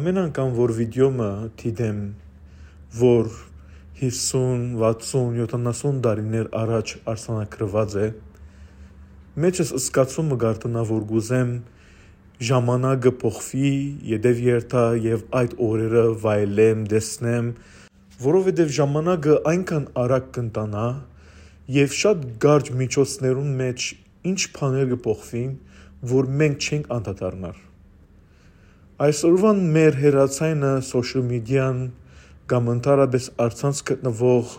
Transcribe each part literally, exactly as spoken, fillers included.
Ամեն անգամ որ վիդեո մը դիտեմ, որ հիսուն, վաթսուն, յոթանասուն տարիներ առաջ արձանագրուած է, մեջս զգացում մը կ'արթնայ, որ կ'ուզեմ ժամանակը փոխուի, ետեւ երթայ եւ այդ օրերը վայելեմ, տեսնեմ, որովհետեւ ժամանակը այնքան արագ կ'ընթանայ եւ շատ կարճ միջոցներուն մէջ ինչ բաներ կը փոխուին, որ մենք չենք անդադարնար։ Այսօրուան մեր հեռացայինը, social media-ն կամ ընդհանրապէս առցանց գտնուող,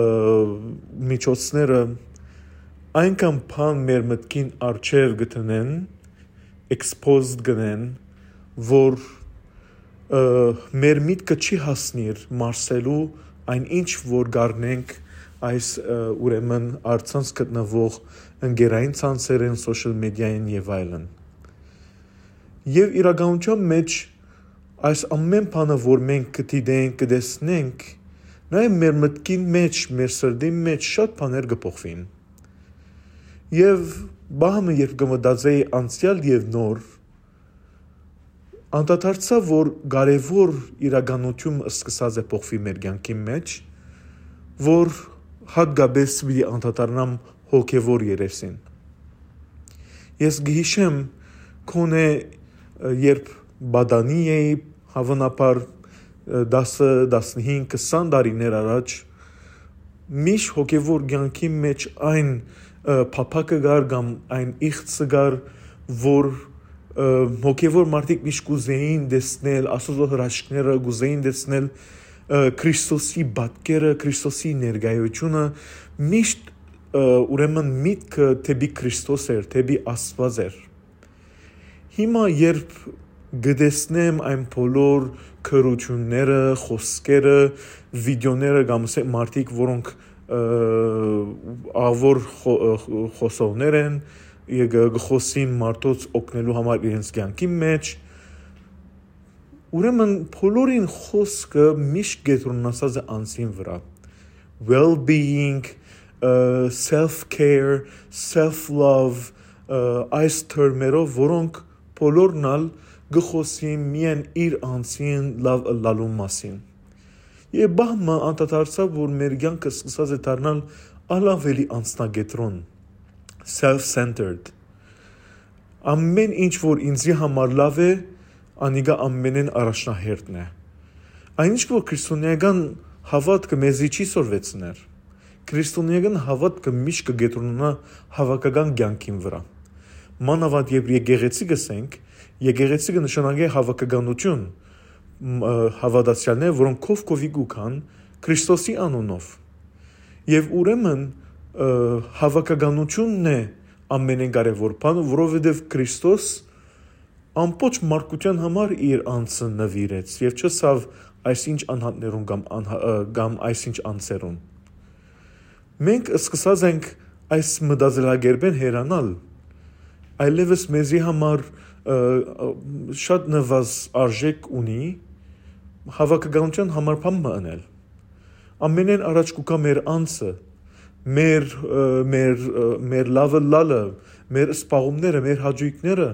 ը, միջոցները այնքան բան մեր մտքին առջեւ կը դնեն, exposed կ'ընեն, որ, ը, մեր միտքը չի հասնիր մարսելու այն ինչ որ կ'առնենք այս, ը, ուրեմն առցանց գտնուող ընկերային ցանցերէն, social media-ին եւ այլն։ Եւ իրականության մէջ այս ամեն բանը որ մենք կը դիտենք, կը տեսնենք, նաեւ մեր մտքին մէջ, մեր սրտին մէջ շատ բաներ կը փոխուին։ Եւ բահ մը երբ կը մտածէի անցեալ եւ նոր, անդադարձայ որ կարեւոր իրականութիւն սկսած է փոխուի մեր կեանքին մէջ, որ հատկապէս պիտի անդադարնամ հոգեվոր երեսին։ Ես կը յիշեմ, քոնէ, ը, երբ պատանի էի, հաւանաբար, ը, տասը, տասնհինգ, քսան տարիներ առաջ, միշտ հոգեվոր կեանքի մէջ այն, ը, փափակը կար կամ այն իղձը կար, որ, ը, հոգեվոր մարդիկ միշտ կ'ուզէին տեսնել Աստուծոյ հրաշքները, կ'ուզէին տեսնել, ը, Քրիստոսի պատկերը, Քրիստոսի ներկայությունը, միշտ, ը, ուրեմն միտքը դէպի Քրիստոս էր, դէպի Աստուած էր։ Հիմա երբ կը տեսնեմ այն բոլոր գրութիւնները, խօսքերը, վիդեոները կամ ասենք մարդիկ, որոնք, ը, աղվոր խո-, ը, խ-, խոսողներ են, եւ կը, կը խօսին մարդոց օգնելու համար իրենց կեանքին մէջ, ուրեմն բոլորին խօսքը միշտ կեդրոնացած է անձին վրայ։ Well-being, ը, self-care, self-love, ը, այս թրմերով, որոնք բոլորն ալ կը խօսին միայն իր անձին լաւ ըլլալու մասին։ Եւ բահ մը անդադարձայ, որ մեր կեանքը սկսած է դառնալ ալ ավելի անձնակեդրոն, self-centered։ Ամեն ինչ որ ինձի համար լաւ է, անիկա ամենէն առաջնահերթն է։ Այն ինչ որ քրիստոնեական հաւատքը մեզի չի սորվեցներ, քրիստոնեական հաւատքը միշտ կը կեդրոնանայ հաւաքական կեանքին վրայ։ Մանաւանդ երբ եկեղեցի կ'ըսենք, եկեղեցի կը նշանակէ հաւաքականութիւն, մ-, ը, հաւատացեալներ, որոնք քով քովի կու գան Քրիստոսի անունով։ Եւ ուրեմն, ը, հաւաքականութիւնն է ամենէն կարեւոր բանը, որովհետեւ Քրիստոս ամբողջ մարդկութեան համար իր անձը նուիրեց եւ չըսաւ այսինչ անհատներուն կամ անհա-, ը, կամ այսինչ անձերուն։ Մենք սկսած ենք այս մտածելակերպէն հեռանալ, այլեւս մեզի համար, ը, ը, շատ նվազ արժեք ունի հաւաքականութեան համար բան մը ընել։ Ամենէն առաջ կու գայ մեր անձը, մեր, ը, մեր, ը, մեր լաւը լալը, մեր սպաղումները, մեր հաճոյքները,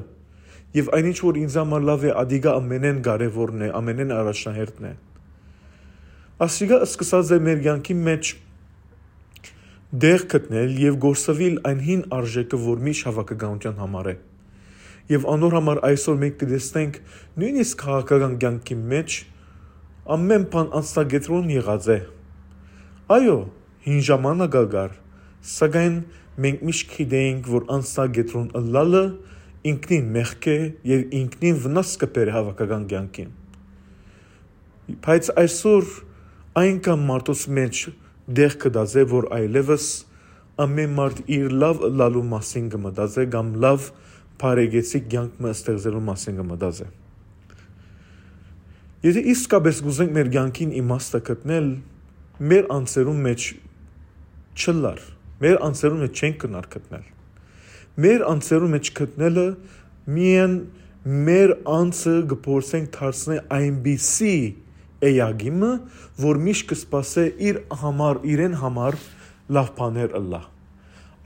եւ այն ինչ որ ինձ համար լաւ է, ադիկա ամենէն կարեւորն է, ամենէն առաջնահերթն է։ Ասիկա սկսած է մեր կեանքի մէջ տեղ գտնել եւ գործուիլ այն հին արժեքը, որ միշտ հաւաքականութեան համար է։ Եւ անոր համար այսօր մենք կը տեսնենք նոյնիսկ քաղաքական կեանքի մէջ ամեն բան անձնակեդրոն եղած է։ Այո, հին ժամանակ ալ կար, սակայն մենք միշտ գիտեինք, որ անձնակեդրոն ըլլալը ինքնին մեղք է եւ ինքնին վնաս կը բերէ հաւաքական կեանքին։ Բայց այսօր այնքան մարդոց մէջ տեղ գտած է, որ այլեւս ամեն մարդ իր լաւ ըլլալու մասին կը մտածէ կամ լաւ բարեկեցիկ կեանք մը ստեղծելու մասին կը մտածէ։ Եթե իսկապէս կ'ուզենք մեր կեանքին իմաստը գտնել, մեր անձերուն մէջ չըլլար, մեր անձերուն մէջ չենք գնար գտնել։ Մեր անձերուն մէջ գտնելը միայն մեր անձը կը փորձենք դարձնել այնպիսի էակի մը, որ միշտ կը սպասէ իր համար, իրեն համար լաւ բաներ ըլլայ։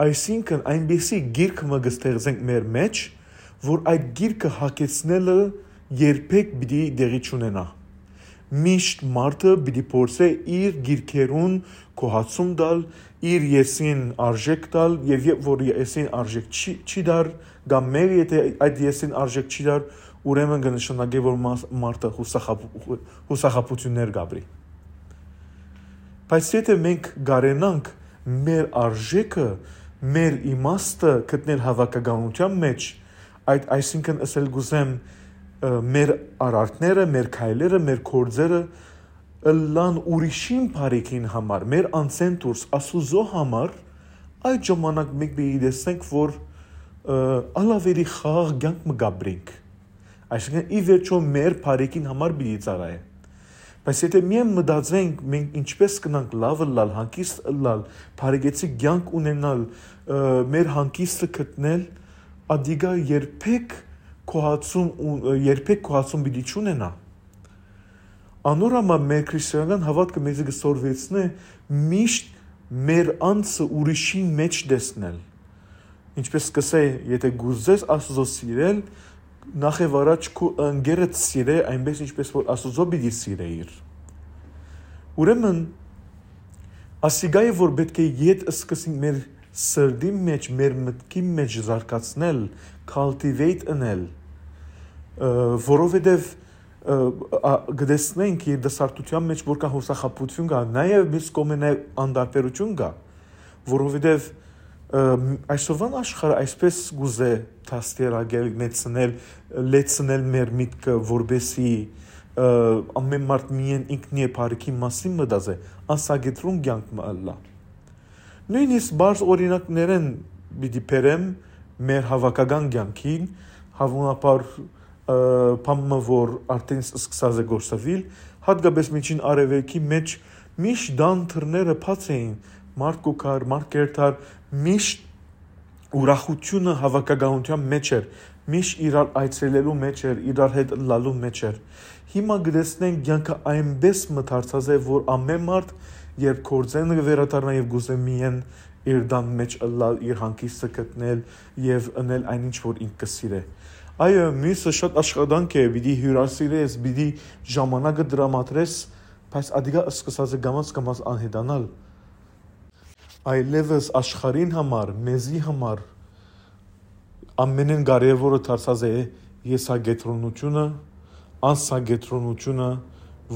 Այսինքն, այնպիսի գիրք մը կը ստեղծենք մեր մէջ, որ այդ գիրքը հագեցնելը երբեք պիտի տեղի չունենայ։ Միշտ մարդը պիտի փորձէ իր գիրքերուն գոհացում տալ, իր եսին արժէք տալ, եւ երբ որ եսին արժէք չի, չի տար, կամ մեր եթե այդ եսին արժէք չի տար, ուրեմն կը նշանակէ, որ մաս-, մարդը յուսախաբ-, յուսախաբութիւններ կ'ապրի։ Բայց եթե մենք կարենանք մեր արժէքը, մեր իմաստը գտնել հաւաքականութեան մեջ, այդ, այսինքն, ըսել կ'ուզեմ, ը, մեր արարքները, մեր քայլերը, մեր գործերը ըլլան ուրիշին բարիքին համար, մեր անցէն դուրս, Աստուծոյ համար, այդ ժամանակ մենք պիտի տեսնենք, որ, ը, ալավերի խաղաղ կեանք մը կ'ապրենք։ Այսինքն, ի վերջոյ մեր բարիքին համար պիտի ծառայէ։ Բայց եթե միայն մտածենք, մենք ինչպես կնանք լաւ ըլլալ, հանգիստ ըլլալ, բարեկեցիկ կեանք ունենալ, ը, մեր հանգիստը գտնել, ադիկա երբեք գոհացում ու, երբեք գոհացում պիտի չունենայ։ Անոր համար մեր քրիստոնեական հաւատքը մեզի կը սորվեցնէ միշտ մեր անձը ուրիշին մէջ տեսնել։ Ինչպես կ'ըսէ, եթե կ'ուզես Աստուծոյ սիրել, նախ եւ առաջ քու ընկերդ սիրէ, այնպես ինչպես որ Աստուծոյ պիտի սիրէիր։ Ուրեմն, ասիկա է, որ պէտք է ետ սկսենք մեր սրտին մէջ, մեր մտքին մէջ զարգացնել, cultivate ընել, ը, որովհետեւ, ը, ա, կը տեսնենք երիտասարդութեան մէջ որքան յուսախաբութիւն կայ, նաեւ մյուս կողմէ նաեւ անտարբերութիւն կայ, որովհետեւ, ը, այսօրվան աշխարհը այսպես կ'ուզէ դաստիարակել, մեծցնել, լեցնել մեր միտքը, որպեսզի, ը, ամէն մարդ միայն ինքնի է բարիքին մասին մտածէ, անսակեդրոն կեանք մը ըլլայ։ Նոյնիսկ պարզ օրինակներէն պիտի բերեմ մեր հաւաքական կեանքին, հաւանաբար, ը, բան մը, որ արդեն սկսած է գործաւիլ, յատկապես Միջին Արեւելքի մէջ միշտ տան դռները բաց էին, մարդ կու գար, մարդ կ'երթար, միշտ ուրախութիւնը հաւաքականութեան մէջ էր, միշտ իրար այցելելու մէջ էր, իրար հետ ըլլալու մէջ էր։ Հիմա կը տեսնենք, կեանքը այնպէս մը դարձած է, որ ամէն մարդ, երբ գործէն կը վերադառնայ եւ կ'ուզէ միայն իր տան մէջ ըլլալ, իր հանգիստը գտնել եւ ընել այն ինչ որ ինք կը սիրէ։ Այո, միւսը շատ աշխատանք է, պիտի հիւրասիրես, պիտի ժամանակը տրամադրես, բայց ադիկա սկսած է կամաց-կամաց անհետանալ։ Այլեւս աշխարհին համար, մեզի համար ամէնէն կարեւորը դարձած է եսակեդրոնութիւնը, անսակեդրոնութիւնը,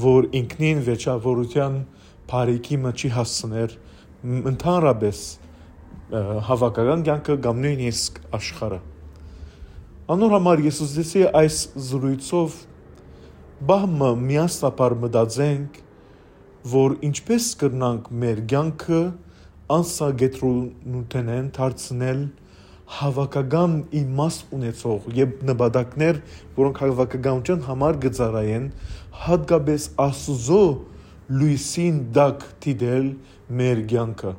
որ ինքնին վերջավորութեան բարիքի մը չի հասցներ, մ-, ընդհանրապէս, ը, հաւաքական կեանքը կամ նոյնիսկ աշխարհը։ Անոր համար ես ուզեցի այս զրույցով պահ մը միասնաբար մտածենք, որ ինչպես կրնանք մեր կեանքը անսակեդրոնութենէն դարձնել հաւաքական իմաստ ունեցող եւ նպատակներ, որոնք հաւաքականութեան համար կը ծառայեն, յատկապես Աստուծոյ լոյսին տակ դիտել մեր կեանքը։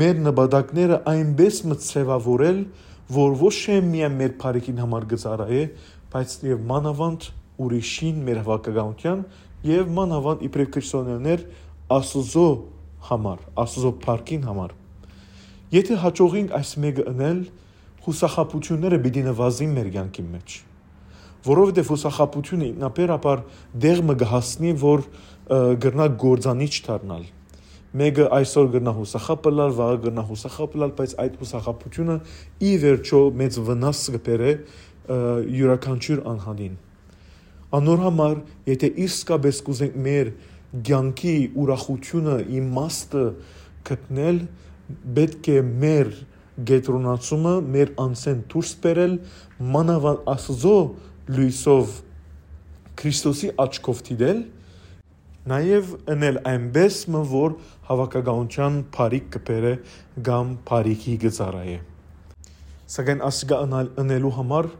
Մեր նպատակները այնպէս մը ձեւաւորել, որ ոչ միայն մեր բարիքին համար կը ծառայէ, բայց եւ մանաւանդ ուրիշին, մեր հաւաքականութեան եւ մանաւանդ իբրեւ քրիստոնեաներ Աստուծոյ համար, Աստուծոյ փառքին համար։ Եթե հաջողենք այս մէկը ընել, յուսախաբութիւնները պիտի նվազին մեր կեանքին մէջ, որովհետեւ յուսախաբութիւնը ինքնաբերաբար դեղ մը կը հասնի, որ, ը, կրնայ կործանիչ դառնալ։ Մէկը այսօր կրնայ յուսախաբ ըլլալ, վաղը կրնայ յուսախաբ ըլլալ, բայց այդ յուսախաբութիւնը ի վերջոյ մեծ վնաս կը բերէ, ը, իւրաքանչիւր անհատին։ Անոր համար, եթե իսկապես կ'ուզենք մեր կեանքի ուրախութիւնը, իմաստը գտնել, պէտք է մեր կեդրոնացումը մեր անձէն դուրս բերել, մանաւանդ Աստուծոյ լոյսով, Քրիստոսի աչքով դիտել, նաեւ ընել այնպէս մը, որ հաւաքականութեան բարիք կը բերէ կամ բարիքի կը ծառայէ։ Սակայն ասիկա ընալ, ընելու համար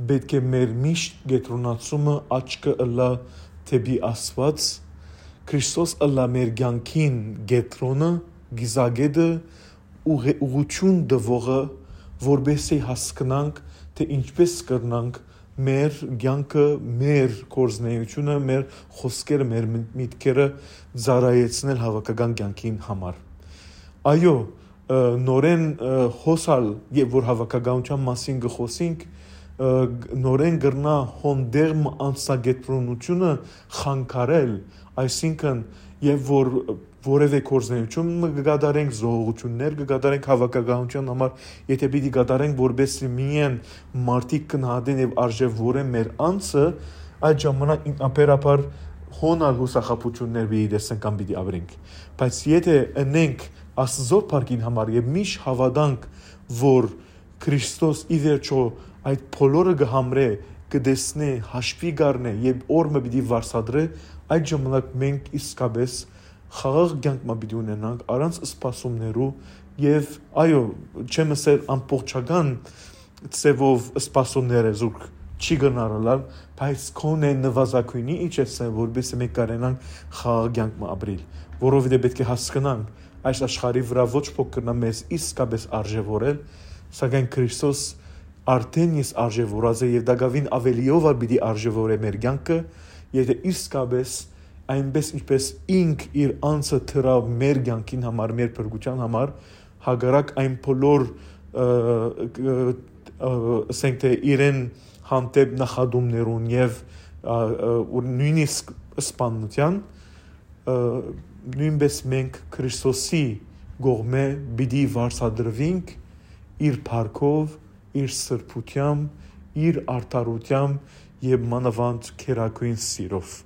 պէտք է մեր միշտ կեդրոնացումը, աչքը ըլլայ դէպի Աստուած, Քրիստոս ըլլայ մեր կեանքին կեդրոնը, կիզակետը, ուղ-, ուղղութիւն տուողը, որպեսզի հասկնանք, թէ ինչպես կրնանք մեր կեանքը, մեր գործունեությունը, մեր խօսքերը, մեր մի-, միտքերը ծառայեցնել հաւաքական կեանքին համար։ Այո, ը, նորէն, ը, հոս ալ, երբ որ հաւաքականութեան մասին կը խօսենք, ը, գ-, նորէն կրնայ հոն դեղմ անձնակեդրոնութիւնը խանգարել, այսինքն, եւ որ որեւէ գործունեութիւն մը կը կատարենք, զոհողութիւններ կը կատարենք հաւաքականութեան համար, եթէ պիտի կատարենք, որպեսզի միայն մարդիկ գնահատեն եւ արժեւորեն մեր անձը, այդ ժամանակ ինքնաբերաբար հոն ալ յուսախաբութիւններ պիտի տեսնենք կամ պիտի ապրենք։ Բայց եթէ ընենք Աստուծոյ փառքին համար եւ միշտ հաւատանք, որ Քրիստոս ի վերջոյ այդ բոլորը կը համրէ, կը տեսնէ, հաշուի կ'առնէ եւ օր մը պիտի վարձատրէ, այդ ժամանակ մենք իսկապէս խաղաղ կեանք մը պիտի ունենանք առանց սպասումներու եւ, այո, չեմ ըսեր ամբողջական ձեւով սպասումները զուրկ չի կրնար ըլլալ, բայց քոնէ նուազագոյնի իջեցնել, որպեսզի մենք կարենանք խաղաղ կեանք մը ապրիլ, որովհետեւ պէտք է հասկնանք, այս աշխարհի վրայ ոչ ոք կրնայ մեզ իսկապէս արժեւորել, սակայն Քրիստոս արդէն իսկ արժեւորած է եւ տակաւին աւելիով ալ պիտի արժեւորէ մեր կեանքը, եթէ իսկապէս այնպէս ինչպէս ինք իր անձը դրաւ մեր կեանքին համար, մեր փրկութեան համար, հակառակ այն բոլոր, ը, ը, ը, ասենք թէ իրեն հանդէպ նախատումներուն եւ, ա, ա, ու նոյնիսկ սպաննութեան, ը, նոյնպէս մենք Քրիստոսի կողմէ պիտի վարձատրուինք իր փառքով, իր սրբութեամբ, իր արդարութեամբ եւ մանաւանդ գերագոյն սիրով։